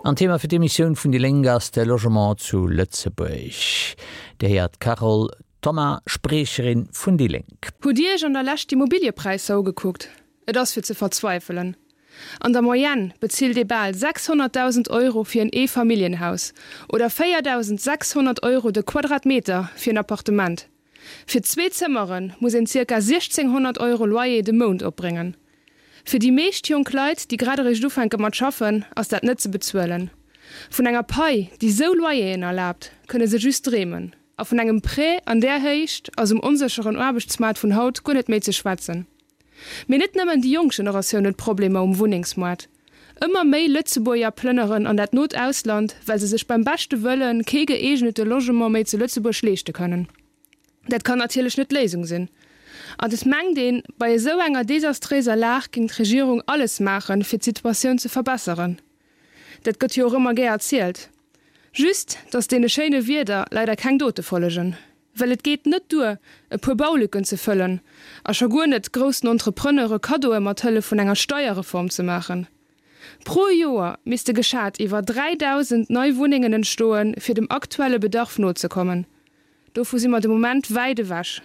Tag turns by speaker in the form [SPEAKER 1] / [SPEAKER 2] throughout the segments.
[SPEAKER 1] An Thema fir d'Emissioun vun déi Lénk ass de Logement zu Lëtzebuerg. Dir héiert d'Carole Thoma, Spriecherin vun déi Lénk.
[SPEAKER 2] Hutt Dir Iech an der Lescht d'Immobiliëpräisser ugekuckt? Et ass fir ze verzweifelen. An der Moyenne bezilt ee bal 600.000 Euro fir en Eefamilljenhaus oder 4.600 Euro de Quadratmeter fir en Appartement. Fir zwee Zëmmere muss een zirka 1.600 Euro Loyer de Mount opbréngen. Fir déi meescht jonk Leit, déi grad eréischt ufänke mat schaffen, ass dat net ze bezuelen. Vun enger Pai, déi sou Loyeren erlaabt, kënne se just dreemen. A vun engem Prêt an där Héicht ass um onsécheren Aarbechtsmaart vun haut guer net méi ze schwätzen. Mee net nëmmen déi jonk Generatioun huet Problemer um Wunnengsmoart. Ëmmer méi Lëtzebuerger plënneren an dat not Ausland, well se sech beim beschte Wëlle kee gëeegnete Logement méi zu Lëtzebuerg leeschte kënnen. Dat kann natierlech net d'Léisung sinn. An et mengt een, bei esou enger desastréiser Lag géing d'Regierung alles maachen, fir d'Situatioun ze verbesseren. Dat gëtt jo och ëmmer gär erzielt. Just, datt deene schéine Wierder leider keng Dote follegen. Well et geet net duer, e puer Baulücken ze fëllen, a scho guer net groussen Entrepreneure Kaddoe mat Hëllef vun enger Steierreform ze maachen. Pro Joer misste geschat iwwer 3.000 nei Wunnengen entstoen, fir dem aktuelle Bedarf nozekommen. Dovu si mer de Moment wäit ewech.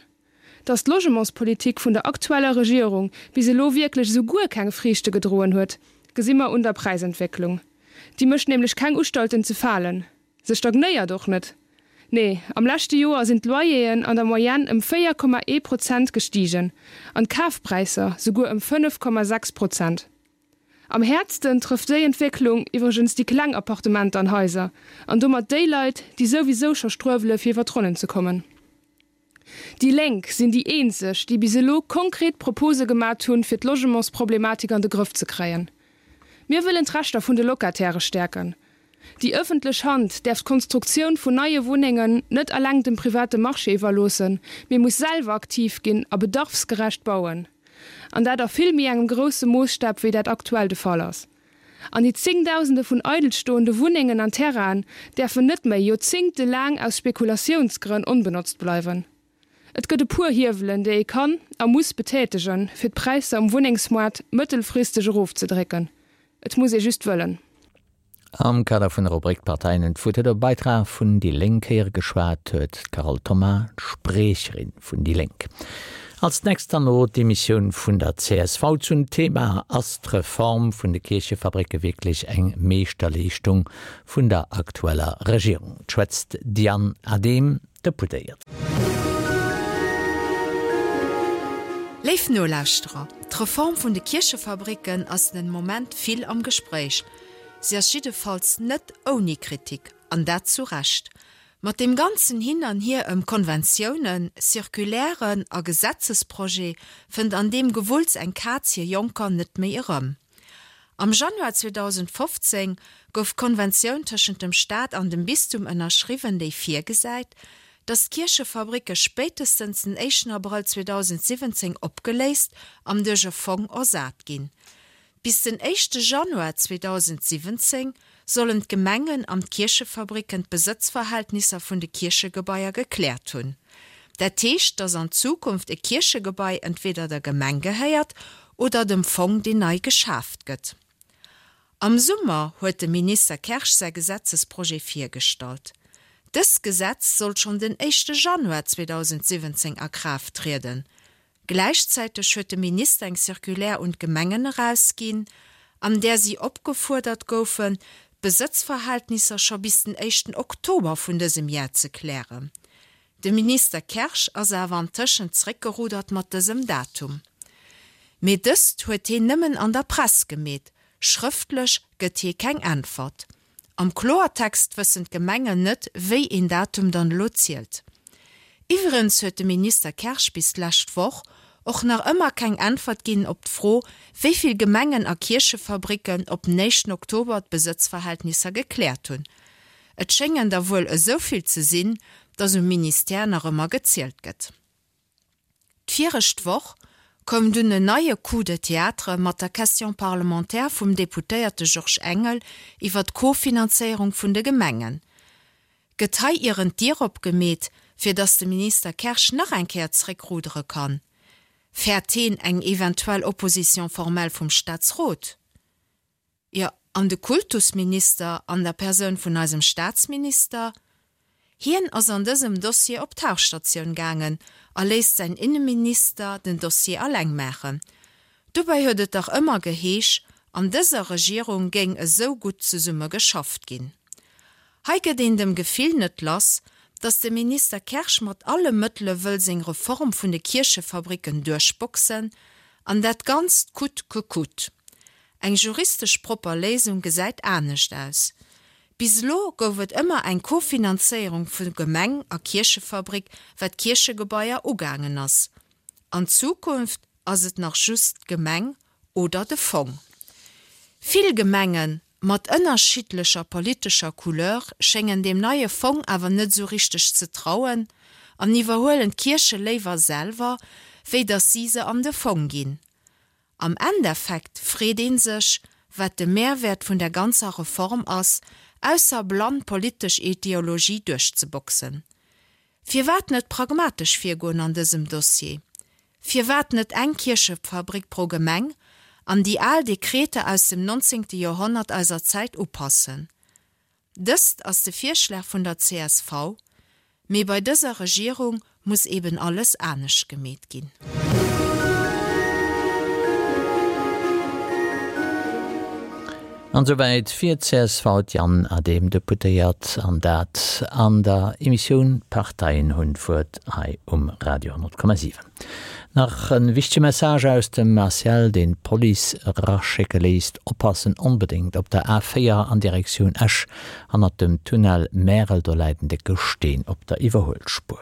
[SPEAKER 2] Datt d'Logementspolitik vun der aktueller Regierung bis elo wierklech esou guer keng Friichte gedroen huet, gesi mer un der Präisentwécklung. Déi mécht nämlech keng Ustalten ze falen. Se stagnéiert och net. Nee, am leschte Joer sinn d'Loyeren an der Moyenne ëm 4,1 Prozent gestigen an d'Kafpräisser souguer ëm 5,6 Prozent. Am häertsten trëfft déi Entwécklung iwwregens déi kleng Appartementer an Haiser an domat déi Leit, déi souwisou scho struewele fir iwwer d'Ronnen ze kommen. Déi Lénk sinn déi eenzeg, déi bis elo konkret Propose gemat hunn, fir d'Logementsproblematik an de Grëff ze kréien. Mir wëllen d'Rechter vun de Locataire stäerken. Déi ëffentlech Hand däerf d'Konstruktioun vun neie Wunnengen net eleng dem private Marché iwwerloossen, mee muss selwer aktiv ginn a bedarfsgerecht bauen. An dat a vill méi engem grousse Moosstap, wéi dat aktuell de Fall ass. An déi Zéngdausende vun eidelstoende Wunnengen an Terrainen däerfen net méi joerzéngtelaang aus Spekulatiounsgrënn onbenotzt bleiwen. Et gëtt e puer Hiewelen, déi ee kann a muss betätegen, fir d'Präisser um Wunnengsmoart mëttelfristeg erofzedrécken. Et muss ee just wëllen.
[SPEAKER 1] Am Kader vun der Rubrik D'Parteien hunn d'Wuert huet op e Beitrag vun déi Lénk héiere geschwat huet d'Carole Thoma, d'Spriecherin vun déi Lénk. Als nächst dann elo d'Emissioun vun der csv zum Thema Ass d'Reform vun de Kierchefabricke wierklech eng Meeschterleeschtung vun der aktueller Regierung? Et schwätzt d'Diane Adehm, Deputéiert.
[SPEAKER 3] Léif Nolauschterer, d'Reform vun de Kierchefabricken ass den Moment vill am Gespréich. Si ass jiddefalls net ouni Kritik, an dat zu Recht. Mat deem ganzen Hin an Hier ëm Konventiounen, Circulairen a Gesetzesprojet fënnt an deem Gewulls eng Kaz hir Jonker net méi erëm. Am Januar 2015 gouf d'Konventioun tëschent dem Staat an dem Bistum ënnerschriwwen, déi virgesäit, datt d'Kierchefabricke spéitestens den éischten Abrëll 2017 opgeléist an duerch e Fong ersat ginn. Bis den éischte Januar 2017 sollen d'Gemengen an d'Kierchefabricken d'Besëtzverhältnisser vun de Kierchegebaier gekläert hunn. Dat heescht, datt an Zukunft e Kierchegebai entweder der Gemeng gehéiert oder dem Fong, deen nei geschaaft gëtt. Am Summer huet de Minister Kersch säi Gesetzesprojet virgestallt. Dëst Gesetz sollt schonn den éischte Januar 2017 a Kraaft trieden. Gläichzäiteg huet de Minister eng Circulaire un d'Gemengen erausginn, an där si opgefuerdert goufen, d'Besëtzverhältnisser scho bis den éischten Oktober vun dësem Jar ze klären. De Minister Kersch ass awer antëschent zréckgerudert mat dësem Datum. Mee dëst huet heen nëmmen an der Press gemeet, schrëftlech gëtt hie keng Äntwert. Am Kloertext wëssen d'Gemengen net, wéi een Datum dann elo zielt. Iwwregens huet de Minister Kersch bis d'lescht Woch och nach ëmmer keng Äntwert ginn op d'Fro, wéi vill Gemengen a Kierchefabricken op den éischten Oktober d'Besëtzverhältnisser gekläert hunn. Et schéngen der wuel esou vill ze sinn, datt um Ministère nach ëmmer gezielt gëtt. D'virescht Woch koum dunn en neie Coup de théâtre mat der Question parlementaire vum Deputéierte Georges Engel iwwer d'Kofinanzéierung vun de Gemengen. Gëtt hei ieren d'Dier opgemeet, fir datt de Minister Kersch nach eng Kéier zréckrudere kann? Fäert heen eng eventuell Opposition formelle vum Staatsrot? Jo. An de Kultusminister an der Persoun vun eisem Staatsminister? Hien ass an dësem Dossier op Tauchstatioun gaangen a léisst säin Inneminister den Dossier alleng maachen. Dobäi huet et dach ëmmer geheesch, an dëser Regierung géing esou gutt zesumme geschafft ginn. Hei gëtt een dem Gefill net lass, datt de Minister Kersch mat alle Mëttele wëll seng Reform vun de Kierchefabricken duerchboxen, an dat Ganzt coûte que coûte. Eng juristesch propper Léisung gesäit anescht aus. Bis elo gouf et ëmmer eng Kofinanzéierung vu Gemeng a Kierchefabrik wat d'Kierchegebaier ugaangen ass. An Zukunft ass et nach just d'Gemeng oder de Fong. Vill Gemenge mat ënnerschiddlecher politescher Couleur schéngen deem neie Fong awer net esou richteg ze trauen an iwwerhuelen d'Kierche léiwer selwer, wéi datt si se an de Fong ginn. Am Endeffekt freet ee sech, wat de Mehrwäert vun der ganzer Reform ass, ausser blann politesch Ideologie duerchzeboxen. Firwat net pragmatesch virgoen an dësem Dossier? Firwat net eng Kierchefabrik pro Gemeng an déi al Dekreter aus dem 19. Joerhonnert eiser Zäit upassen? Dëst ass de Virschlag vun der csv, mee bei dëser Regierung muss eben alles anescht gemeet ginn.
[SPEAKER 1] An esouwäit fir csv d'Yann Adehm, Deputéiert, an dat an der Emissioun D'Parteien hunn d'Wuert hei um Radio 10,7. Nach en wichtege Message aus dem ACL, deen d'Police eraschécke léisst, Oppassen onbedéngt op der A4 an Direktioun Esch, hannert dem Tunnel Märel, do läit en décke Steen op der Iwwerhuelspuer.